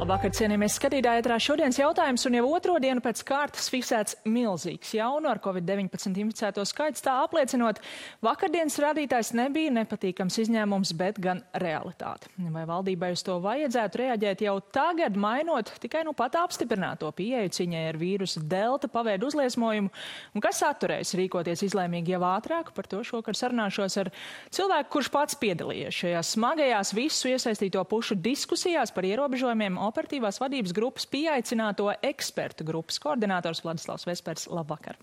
Labvakar, cienījamies skatītāji, ētrā šodienas jautājums, un jau otro dienu pēc kārtas fiksēts milzīgs jaunu ar Covid-19 inficēto skaits, tā apliecinot, vakardienas rādītājs nebija nepatīkams izņēmums, bet gan realitāte. Vai valdībai uz to vajadzētu reaģēt jau tagad, mainot tikai nu pat apstiprināto pieeju ciņai ar vīrusu delta paveidu uzliesmojumu, un kas atturēs rīkoties izlēmīgi jau ātrāk? Par to šokar sarunāšos ar cilvēku, kurš pats piedalījies šajās smagajās visu iesaistīto pušu diskusijās par ierobežojumiem. Operatīvās vadības grupas pieaicināto ekspertu grupas koordinators Vladislavs Vespers. Labvakar.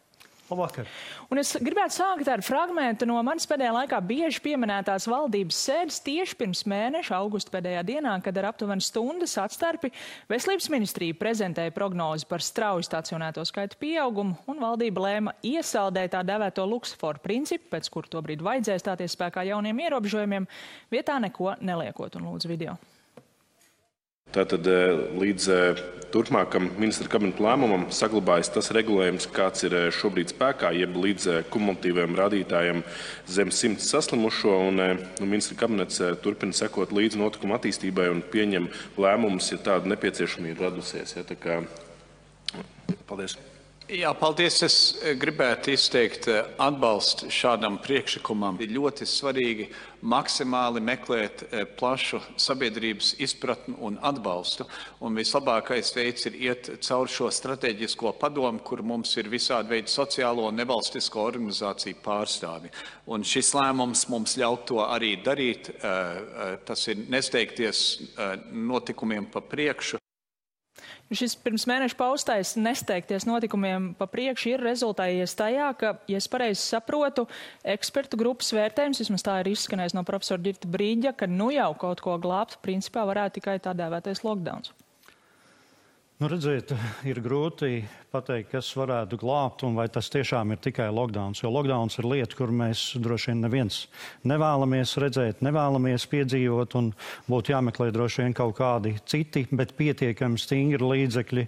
Labvakar. Un es gribētu sākt ar fragmentu no manis pēdējā laikā bieži pieminētās valdības sēdes tieši pirms mēneša, augusta pēdējā dienā, kad ar aptuveni stundas atstarpi Veselības ministrija prezentēja prognozi par strauju stacionēto skaitu pieaugumu, un valdība lēma iesaldēt tā dēvēto luksusforu principu, pēc kura tobrīd vajadzēja stāties spēkā jauniem ierobežojumiem, vietā neko neliekot, un lūdzu video. Tātad līdz turpmākam ministra kabineta lēmumam saglabājas tas regulējums, kāds ir šobrīd spēkā, jeb līdz kumulatīviem rādītājiem zem 100 saslimušo, un ministra kabinets turpina sekot līdz notikuma attīstībai un pieņem lēmumus, ja tāda nepieciešamība radusies. Ja, tā kā... Paldies. Jā, paldies. Es gribētu izteikt atbalstu šādam priekšlikumam. Ir ļoti svarīgi maksimāli meklēt plašu sabiedrības izpratni un atbalstu. Un vislabākais veids ir iet caur šo strateģisko padomu, kur mums ir visādi veidi sociālo un nevalstisko organizāciju pārstāvi. Un šis lēmums mums ļaut to arī darīt. Tas ir nesteigties notikumiem pa priekšu. Šis pirms mēneša paustais nesteigties notikumiem pa priekšu ir rezultējies tajā, ka, ja es pareizi saprotu, ekspertu grupas vērtējums, vismaz tā ir izskanējis no profesora Girta Brīģa, ka nu jau kaut ko glābt, principā varētu tikai tā dēvētais lockdowns. Nu, redziet, ir grūti pateikt, kas varētu glābt un vai tas tiešām ir tikai lockdowns. Jo lockdowns ir lieta, kur mēs droši vien neviens nevēlamies redzēt, nevēlamies piedzīvot un būtu jāmeklē droši vien kaut kādi citi, bet pietiekami stingri līdzekļi,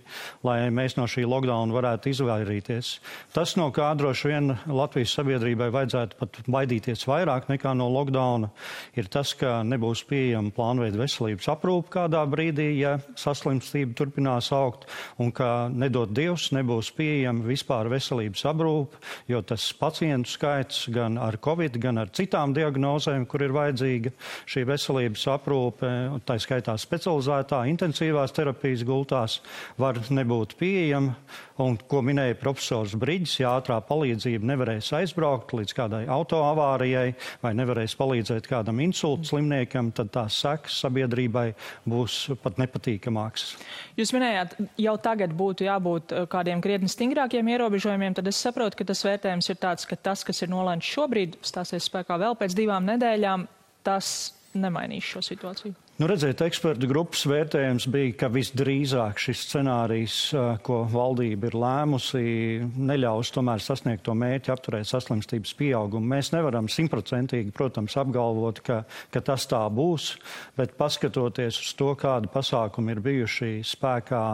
lai mēs no šī lockdowna varētu izvairīties. Tas, no kā droši vien Latvijas sabiedrībai vajadzētu pat baidīties vairāk nekā no lockdowna, ir tas, ka nebūs pieejama plānveida veselības aprūpe kādā brīdī, ja saslimstība turpinās augt, un ka nedod Dievs nebūs pieejama vispār veselības aprūpe, jo tas pacientu skaits gan ar Covid, gan ar citām diagnozēm, kur ir vajadzīga šī veselības aprūpe, tā skaitā specializētā intensīvās terapijas gultās, var nebūt pieejama. Un, ko minēja profesors Briģis, ja ātrā palīdzība nevarēs aizbraukt līdz kādai autoavārijai vai nevarēs palīdzēt kādam insulta slimniekam, tad tās sekas sabiedrībai būs pat nepatīkamākas. Jūs minējāt, jau tagad būtu jābūt kādiem krietni stingrākiem ierobežojumiem, tad es saprotu, ka tas vērtējums ir tāds, ka tas, kas ir nolēmts šobrīd, stāsies spēkā vēl pēc 2 nedēļām, tas nemainīs šo situāciju. Nu, redziet, ekspertu grupas vērtējums bija, ka visdrīzāk šis scenārijs, ko valdība ir lēmusi, neļaus tomēr sasniegt to mērķi apturēt saslimstības pieaugumu. Mēs nevaram 100%, protams, apgalvot, ka tas tā būs, bet paskatoties uz to, kādi pasākumi ir bijuši spēkā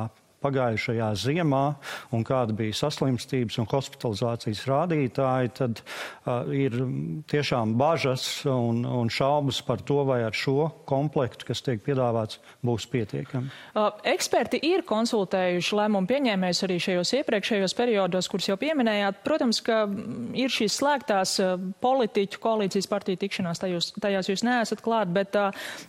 pagājušajā ziemā un kāda bija saslimstības un hospitalizācijas rādītāji, tad ir tiešām bažas un šaubas par to, vai ar šo komplektu, kas tiek piedāvāts, būs pietiekami. Eksperti ir konsultējuši lēmumu pieņēmējus arī šajos iepriekšējos periodos, kurus jau pieminējāt. Protams, ka ir šīs slēgtās politiķu koalīcijas partiju tikšanās, tajās jūs neesat klāt, bet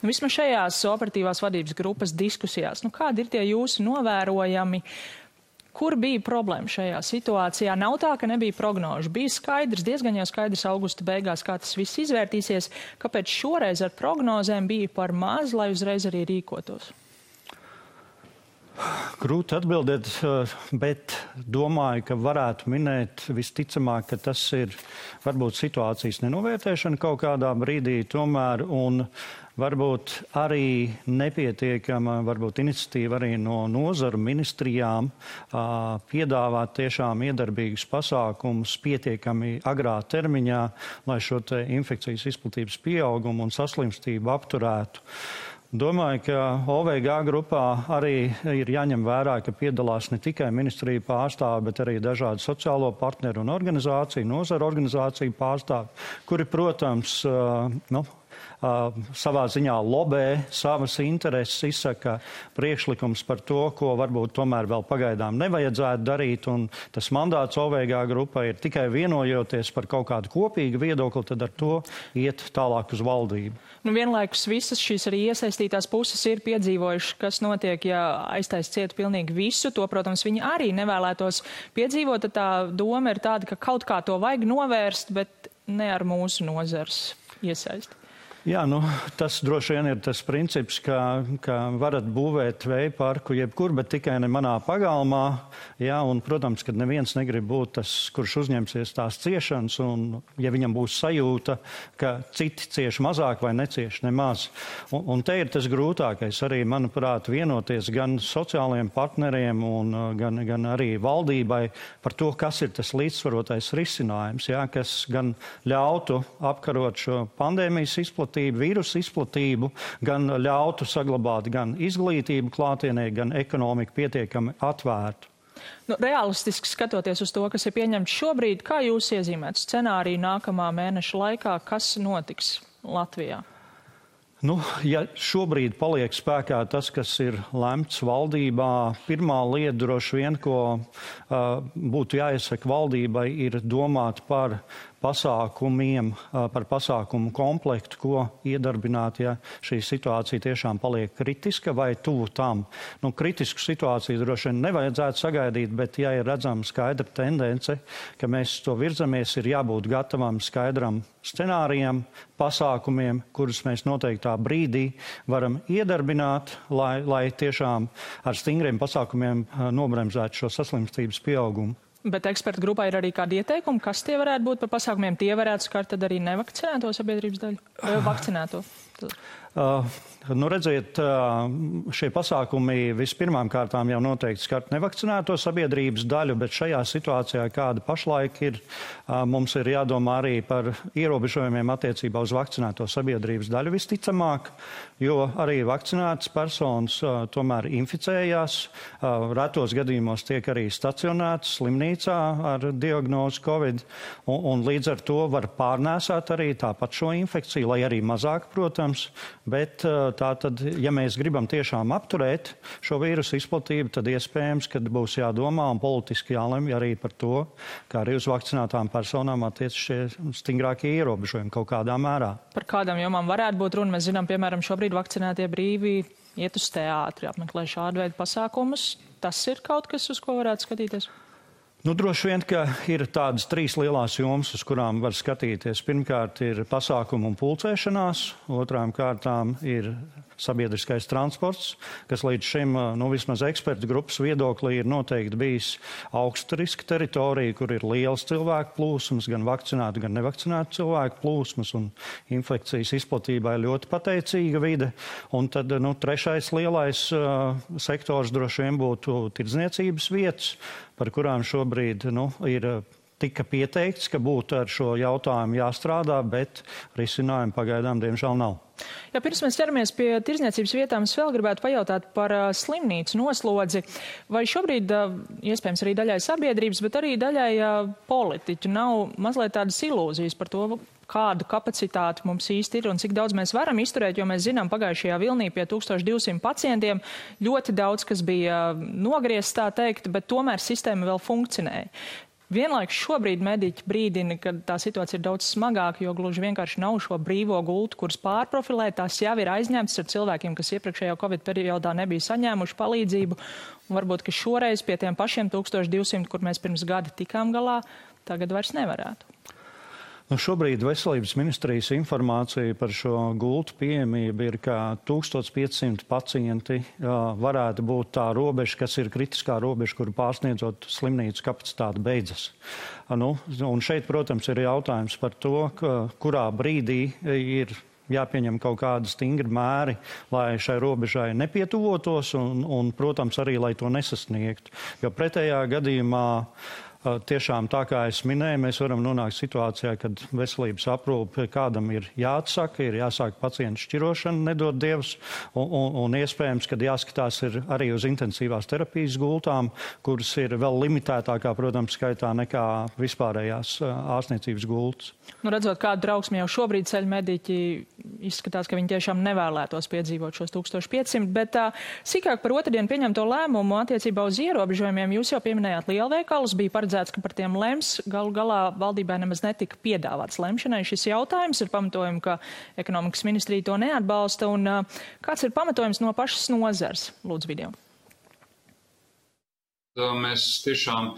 vismaz šajās operatīvās vadības grupas diskusijās, kādi ir tie jūsu novērojumi? Kur bija problēma šajā situācijā? Nav tā, ka nebija prognožu. Bija skaidrs, diezgan jau skaidrs augusta beigās, kā tas viss izvērtīsies. Kāpēc šoreiz ar prognozēm bija par maz, lai uzreiz arī rīkotos? Grūti atbildēt, bet domāju, ka varētu minēt visticamāk, ka tas ir varbūt situācijas nenovērtēšana kaut kādā brīdī tomēr un varbūt arī nepietiekama, varbūt iniciatīva arī no nozaru ministrijām piedāvāt tiešām iedarbīgus pasākumus pietiekami agrā termiņā, lai šo te infekcijas izplatības pieaugumu un saslimstību apturētu. Domāju, ka OVG grupā arī ir jāņem vērā, ka piedalās ne tikai ministrija pārstāvi, bet arī dažādi sociālo partneru un organizāciju, nozaru organizāciju pārstāvi, kuri, protams, savā ziņā lobē savas intereses, izsaka priekšlikums par to, ko varbūt tomēr vēl pagaidām nevajadzētu darīt, un tas mandāts OVG grupai ir tikai vienojoties par kaut kādu kopīgu viedokli, tad ar to iet tālāk uz valdību. Nu, vienlaikus visas šīs arī iesaistītās puses ir piedzīvojušas, kas notiek, ja aiztais ciet pilnīgi visu. To, protams, viņi arī nevēlētos piedzīvot. Tad tā doma ir tāda, ka kaut kā to vajag novērst, bet ne ar mūsu nozars iesaisti. Jā, tas droši vien ir tas princips, ka varat būvēt vēja parku jebkur, bet tikai ne manā pagalmā. Jā, un, protams, ka neviens negrib būt tas, kurš uzņemsies tās ciešanas, un ja viņam būs sajūta, ka citi cieš mazāk vai necieš nemaz. Un te ir tas grūtākais arī, manuprāt, vienoties gan sociālajiem partneriem un gan arī valdībai par to, kas ir tas līdzsvarotais risinājums, jā, kas gan ļautu apkarot šo pandēmijas izplatību, vīrusu izplatību, gan ļautu saglabāt gan izglītību klātienē, gan ekonomiku pietiekami atvērtu. Realistiski skatoties uz to, kas ir pieņemts šobrīd, kā jūs iezīmētu scenāriju nākamā mēneša laikā, kas notiks Latvijā? Ja šobrīd paliek spēkā tas, kas ir lemts valdībā, pirmā lieta droši vien, ko būtu jāiesaka valdībai, ir domāt par pasākumiem, par pasākumu komplektu, ko iedarbināt, ja šī situācija tiešām paliek kritiska vai tuvu tam. Kritisku situāciju droši vien nevajadzētu sagaidīt, bet ja ir redzama skaidra tendence, ka mēs to virzamies, ir jābūt gatavam skaidram scenārijam, pasākumiem, kurus mēs noteiktā brīdī varam iedarbināt, lai tiešām ar stingriem pasākumiem nobremzētu šo saslimstības pieaugumu. Bet ekspertu grupā ir arī kādi ieteikumi, kas tie varētu būt par pasākumiem. Tie varētu skart tad arī nevakcinēto sabiedrības daļu? Vakcinēto? Redziet, šie pasākumi vispirmām kārtām jau noteikti skart nevakcinēto sabiedrības daļu, bet šajā situācijā, kāda pašlaik ir, mums ir jādomā arī par ierobežojumiem attiecībā uz vakcinēto sabiedrības daļu visticamāk, jo arī vakcinētas personas tomēr inficējās, retos gadījumos tiek arī stacionētas slimnīcā ar diagnozi Covid, un līdz ar to var pārnēsāt arī tāpat šo infekciju, lai arī mazāk, protams, bet tātad, ja mēs gribam tiešām apturēt šo vīrusu izplatību, tad iespējams, ka būs jādomā un politiski jālemj arī par to, kā arī uz vakcinētām personām attiec šie stingrākie ierobežojumi kaut kādā mērā. Par kādām jomām varētu būt runa? Mēs zinām, piemēram, šobrīd vakcinētie brīvi iet uz teātri, apmeklē šādu veidu pasākumus. Tas ir kaut kas, uz ko varētu skatīties? Droši vien, ka ir tādas trīs lielās jomas, uz kurām var skatīties. Pirmkārt ir pasākumu un pulcēšanās, otrām kārtām ir sabiedriskais transports, kas līdz šim, vismaz ekspertu grupas viedoklī, ir noteikti bijis augsta riska teritorija, kur ir liels cilvēku plūsmas, gan vakcinētu, gan nevakcinētu cilvēku plūsmas, un infekcijas izplatībai ļoti pateicīga vide. Un tad, trešais lielais sektors droši vien būtu tirdzniecības vietas, par kurām šobrīd ir tika pieteikts, ka būtu ar šo jautājumu jāstrādā, bet risinājumu pagaidām diemžēl nav. Ja pirms mēs ķeramies pie tirdzniecības vietām, es vēl gribētu pajautāt par slimnīcu noslodzi. Vai šobrīd, iespējams arī daļai sabiedrības, bet arī daļai politiķu nav mazliet tādas ilūzijas par to, kādu kapacitāti mums īsti ir un cik daudz mēs varam izturēt, jo mēs zinām, pagājušajā vilnī pie 1200 pacientiem ļoti daudz, kas bija nogriezts, tā teikt, bet tomēr sistēma vēl funkcionēja. Vienlaikus šobrīd mediķi brīdina, ka tā situācija ir daudz smagāka, jo gluži vienkārši nav šo brīvo gultu, kuras pārprofilēt. Tās jau ir aizņemtas ar cilvēkiem, kas iepriekšējā Covid periodā nebija saņēmuši palīdzību. Un varbūt, ka šoreiz pie tiem pašiem 1200, kur mēs pirms gada tikām galā, tagad vairs nevarētu. Šobrīd Veselības ministrijas informācija par šo gultu pieejamību ir, ka 1500 pacienti varētu būt tā robeža, kas ir kritiskā robeža, kuru pārsniedzot slimnīcu kapacitāti beidzas. Un šeit, protams, ir jautājums par to, kurā brīdī ir jāpieņem kaut kādi stingri mēri, lai šai robežai nepietuvotos un, protams, arī, lai to nesasniegtu. Jo pretējā gadījumā tiešām tā kā es minēju, mēs varam nonākt situācijā, kad veselības aprūpe kādam ir jāatsaka, ir jāsāk pacientu šķirošana, nedod Dievs, un iespējams, kad jāskatās ir arī uz intensīvās terapijas gultām, kuras ir vēl limitētākā, protams, skaitā nekā vispārējās ārstniecības gultas. Nu, redzot, kādu trauksmi jau šobrīd ceļ mediķi, izskatās, ka viņi tiešām nevēlētos piedzīvot šos 1500, bet sīkāk par otrdienu pieņemto lēmumu attiecībā uz ierobežojumiem. Jūs jau pieminējāt lielveikalus, bija paredzēts, ka par tiem lems. Galu galā valdībai nemaz netika piedāvāts lemšanai šis jautājums. Ir pamatojumi, ka ekonomikas ministrija to neatbalsta. Un kāds ir pamatojums no pašas nozars? Lūdzu, video. Mēs tiešām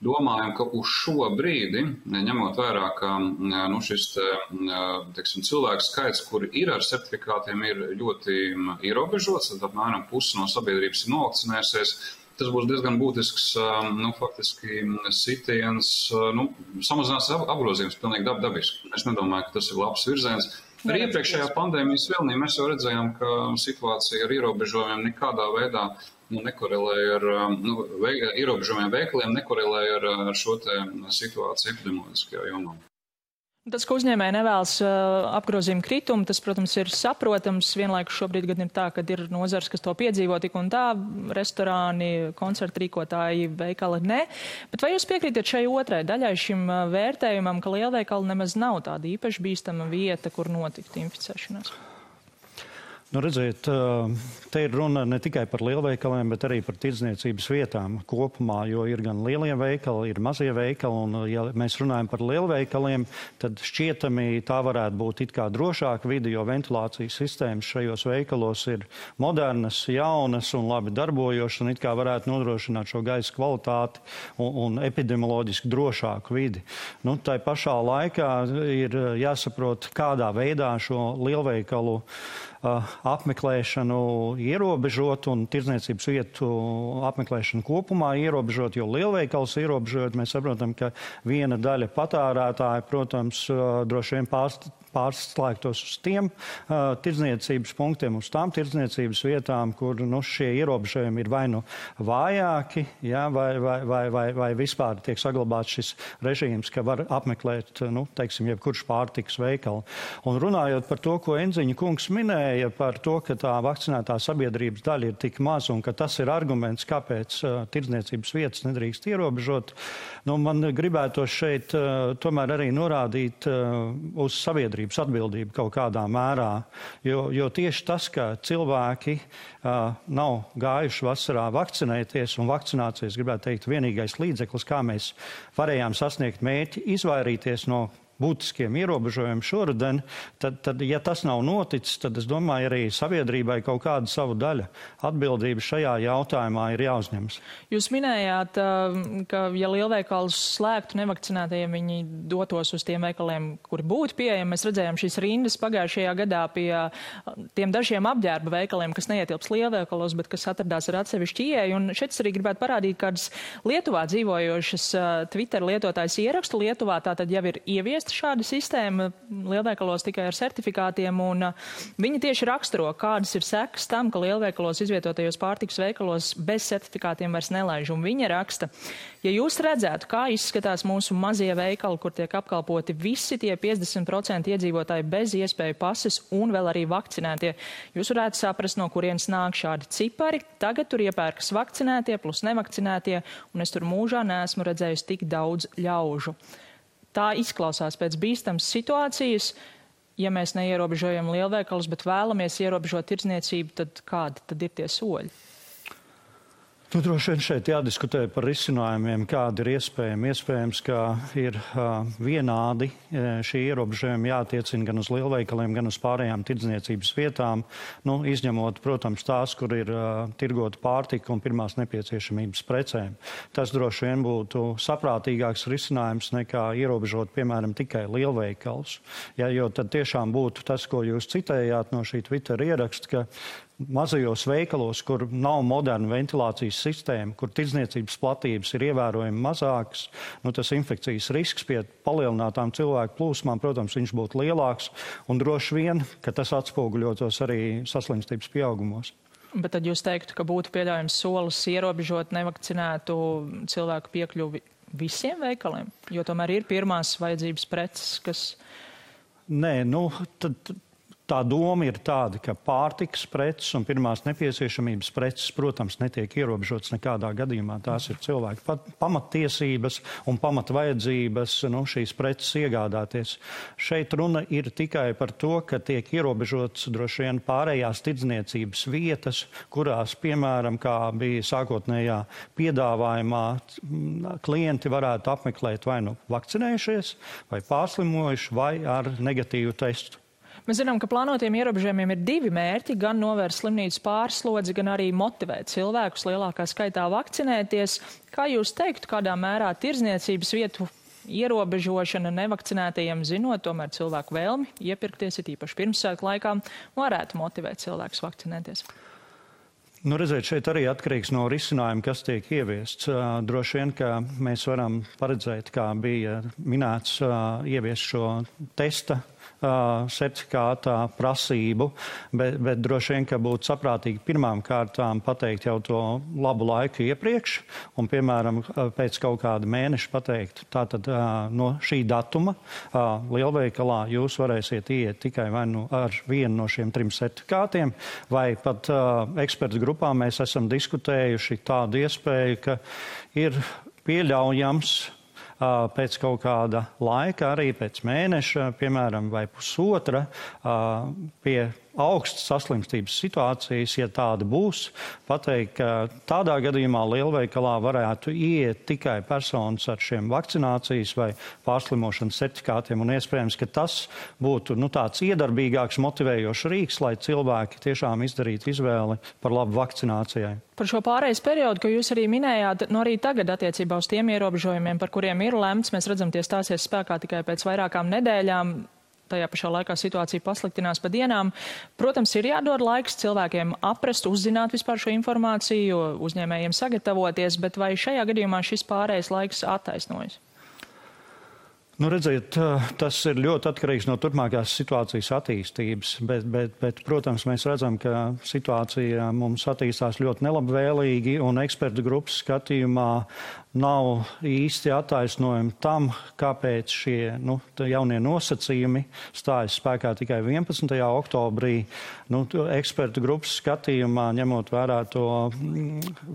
domājam, ka uz šo brīdi, ņemot vērā, ka šis cilvēku skaits, kuri ir ar certifikātiem, ir ļoti ierobežots, tad apmēram pusi no sabiedrības ir novakcinējusies. Tas būs diezgan būtisks, faktiski sitiens, samazinās apgrozījums pilnīgi dabiski. Es nedomāju, ka tas ir labs virziens. Arī iepriekšējā pandēmijas vilnī mēs jau redzējām, ka situācija ar ierobežojumiem nekādā veidā nekorelēja ar ierobežojumiem veikaliem, nekorelēja ar šo te situāciju epidemioloģiskajā jomā. Tas, ka uzņēmēji nevēlas apgrozījuma kritumu, tas, protams, ir saprotams. Vienlaikus šobrīd gan ir tā, ka ir nozars, kas to piedzīvo tik un tā, restorāni, koncertu rīkotāji, veikali ne. Bet vai jūs piekrītat šai otrai daļai, šim vērtējumam, ka lielveikali nemaz nav tāda īpaši bīstama vieta, kur notikt inficēšanās? Nu, redziet, te ir runa ne tikai par lielveikaliem, bet arī par tirdzniecības vietām kopumā, jo ir gan lielie veikali, ir mazie veikali, un ja mēs runājam par lielveikaliem, tad šķietami tā varētu būt it kā drošāka vide, jo ventilācijas sistēmas šajos veikalos ir modernas, jaunas un labi darbojošas, un it kā varētu nodrošināt šo gaisa kvalitāti un epidemioloģiski drošāku vidi. Nu, tai pašā laikā ir jāsaprot, kādā veidā šo lielveikalu apmeklēšanu ierobežot un tirdzniecības vietu apmeklēšanu kopumā ierobežot, jo lielveikals ierobežot, mēs saprotam, ka viena daļa patērētāja, protams, droši vien pārslēgtos uz tiem tirdzniecības punktiem, uz tām tirdzniecības vietām, kur šie ierobežojumi ir vai nu vājāki, ja, vai vispār tiek saglabāts šis režīms, ka var apmeklēt, teiksim, jebkurš pārtikas veikali. Un runājot par to, ko Enziņa kungs minēja, par to, ka tā vakcinētā sabiedrības daļa ir tik maz un ka tas ir arguments, kāpēc tirdzniecības vietas nedrīkst ierobežot, man gribētos šeit tomēr arī norādīt uz sabiedrības atbildību kaut kādā mērā, jo tieši tas, ka cilvēki nav gājuši vasarā vakcinēties, un vakcinācijas, gribētu teikt, vienīgais līdzeklis, kā mēs varējām sasniegt mērķi, izvairīties no būtiskiem ierobežojumiem šoruden, tad, ja tas nav noticis, tad es domāju, arī sabiedrībai kaut kāda savu daļa atbildība šajā jautājumā ir jāuzņemas. Jūs minējāt, ka, ja lielveikals slēgtu nevakcinētajiem, viņi dotos uz tiem veikaliem, kuri būtu pieejami. Mēs redzējām šīs rindas pagājušajā gadā pie tiem dažiem apģērba veikaliem, kas neietilps lielveikalos, bet kas atradās ar atsevišķu ieeju. Un šeit es arī gribētu parādīt kādas Lietuvā dzīvojošas Twitter lietotājs ierakstu. Lietuvā tātad jau ir ieviesta šāda sistēma lielveikalos tikai ar certifikātiem, un viņi tieši raksturo, kādas ir sekas tam, ka lielveikalos izvietotajos pārtikas veikalos bez certifikātiem vairs nelaiž. Un viņa raksta, ja jūs redzētu, kā izskatās mūsu mazie veikali, kur tiek apkalpoti visi tie 50% iedzīvotāji bez iespēju pases un vēl arī vakcinētie, jūs varētu saprast, no kurienes nāk šādi cipari. Tagad tur iepērkas vakcinētie plus nevakcinētie, un es tur mūžā neesmu redzējusi tik daudz ļaužu. Tā izklausās pēc bīstamas situācijas. Ja mēs neierobežojam lielveikalus, bet vēlamies ierobežot tirdzniecību, tad kādi tad ir tie soļi? Droši vien šeit jādiskutē par risinājumiem, kādi ir iespējami. Iespējams, ka ir vienādi šie ierobežojumi jātiecina gan uz lielveikaliem, gan uz pārējām tirdzniecības vietām, izņemot, protams, tās, kur ir tirgota pārtika un pirmās nepieciešamības precēm. Tas droši vien būtu saprātīgāks risinājums nekā ierobežot, piemēram, tikai lielveikalus. Ja, jo tad tiešām būtu tas, ko jūs citējāt no šī Twitter ieraksta, ka mazajos veikalos, kur nav moderna ventilācijas sistēma, kur tirdzniecības platības ir ievērojami mazākas, tas infekcijas risks pie palielinātām cilvēku plūsmām, protams, viņš būtu lielāks, un droši vien, ka tas atspoguļotos arī saslimstības pieaugumos. Bet tad jūs teiktu, ka būtu pieļaujams solis ierobežot nevakcinētu cilvēku piekļuvi visiem veikaliem? Jo tomēr ir pirmās vajadzības preces, kas... Nē, tā doma ir tāda, ka pārtikas preces un pirmās nepieciešamības preces, protams, netiek ierobežotas nekādā gadījumā. Tās ir cilvēku pamattiesības un pamatvajadzības šīs preces iegādāties. Šeit runa ir tikai par to, ka tiek ierobežotas droši vien pārējās tirdzniecības vietas, kurās, piemēram, kā bija sākotnējā piedāvājumā, klienti varētu apmeklēt vai nu vakcinējušies, vai pārslimojuši, vai ar negatīvu testu. Mēs zinām, ka plānotiem ierobežojumiem ir divi mērķi, gan novērst slimnīcas pārslodzi, gan arī motivēt cilvēkus lielākā skaitā vakcinēties. Kā jūs teiktu, kādā mērā tirdzniecības vietu ierobežošana nevakcinētajiem, zinot tomēr cilvēku vēlmi iepirkties, it īpaši pirmsvētku laikā, varētu motivēt cilvēkus vakcinēties? Redziet, šeit arī atkarīgs no risinājuma, kas tiek ieviests. Droši vien, ka mēs varam paredzēt, kā bija minēts, ieviest šo testa certifikātā prasību, bet droši vien, ka būtu saprātīgi pirmām kārtām pateikt jau to labu laiku iepriekš un, piemēram, pēc kaut kāda mēneša pateikt, tātad no šī datuma lielveikalā jūs varēsiet iet tikai vai nu ar vienu no šiem 3 certifikātiem, vai pat ekspertu grupā mēs esam diskutējuši tādu iespēju, ka ir pieļaujams pēc kaut kāda laika, arī pēc mēneša, piemēram, vai pusotra, pie augstas saslimstības situācijas, ja tāda būs, pateikt, ka tādā gadījumā lielveikalā varētu iet tikai personas ar šiem vakcinācijas vai pārslimošanas certifikātiem, un iespējams, ka tas būtu tāds iedarbīgāks, motivējošs rīks, lai cilvēki tiešām izdarītu izvēli par labu vakcinācijai. Par šo pārejas periodu, ko jūs arī minējāt, arī tagad attiecībā uz tiem ierobežojumiem, par kuriem ir lemts, mēs redzam, tie stāsies spēkā tikai pēc vairākām nedēļām. Tajā pašā laikā situācija pasliktinās pa dienām. Protams, ir jādod laiks cilvēkiem aprast, uzzināt vispār šo informāciju, uzņēmējiem sagatavoties, bet vai šajā gadījumā šis pārējais laiks attaisnojas? Redziet, tas ir ļoti atkarīgs no turpmākās situācijas attīstības, bet, protams, mēs redzam, ka situācija mums attīstās ļoti nelabvēlīgi un ekspertu grupas skatījumā nav īsti attaisnojumi tam, kāpēc šie jaunie nosacījumi stājas spēkā tikai 11. oktobrī. Ekspertu grupas skatījumā, ņemot vērā to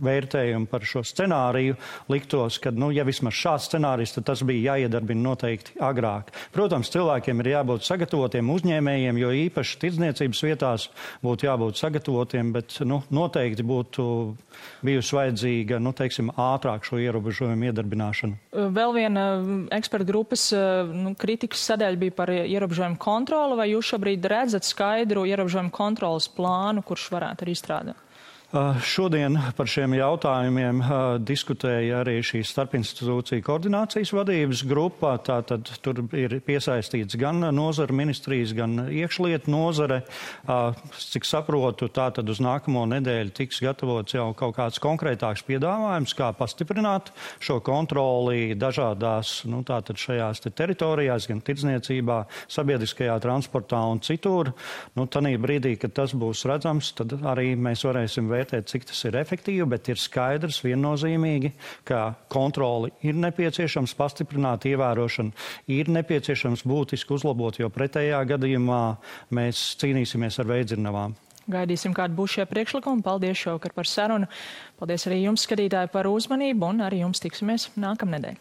vērtējumu par šo scenāriju, liktos, ka, ja vismaz šāds scenārijs, tad tas bija jāiedarbina noteikti agrāk. Protams, cilvēkiem ir jābūt sagatavotiem, uzņēmējiem, jo īpaši tirdzniecības vietās būtu jābūt sagatavotiem, bet noteikti būtu bijusi vajadzīga, ātrāk šo ierobežojumu iedarbināšanu. Vēl viena ekspertu grupas kritikas sadaļa bija par ierobežojumu kontroli, vai jūs šobrīd redzat skaidru ierobežojumu kontrolas plānu, kurš varētu arī izstrādāt? Šodien par šiem jautājumiem diskutēja arī šī starpinstitūcija koordinācijas vadības grupa. Tātad tur ir piesaistīts gan nozara ministrijas, gan iekšlietu nozare. Cik saprotu, tātad uz nākamo nedēļu tiks gatavots jau kaut kāds konkrētāks piedāvājums, kā pastiprināt šo kontroli dažādās, tātad šajās teritorijās, gan tirdzniecībā, sabiedriskajā transportā un citur. Tanī brīdī, kad tas būs redzams, tad arī mēs varēsim vērtēt, cik tas ir efektīvi, bet ir skaidrs viennozīmīgi, ka kontroli ir nepieciešams pastiprināt, ievērošanu ir nepieciešams būtiski uzlabot, jo pretējā gadījumā mēs cīnīsimies ar veidzirnavām. Gaidīsim, kādi būs šie priekšlikumi. Paldies šovakar par sarunu. Paldies arī jums, skatītāji, par uzmanību, un arī jums tiksimies nākamnedēļ.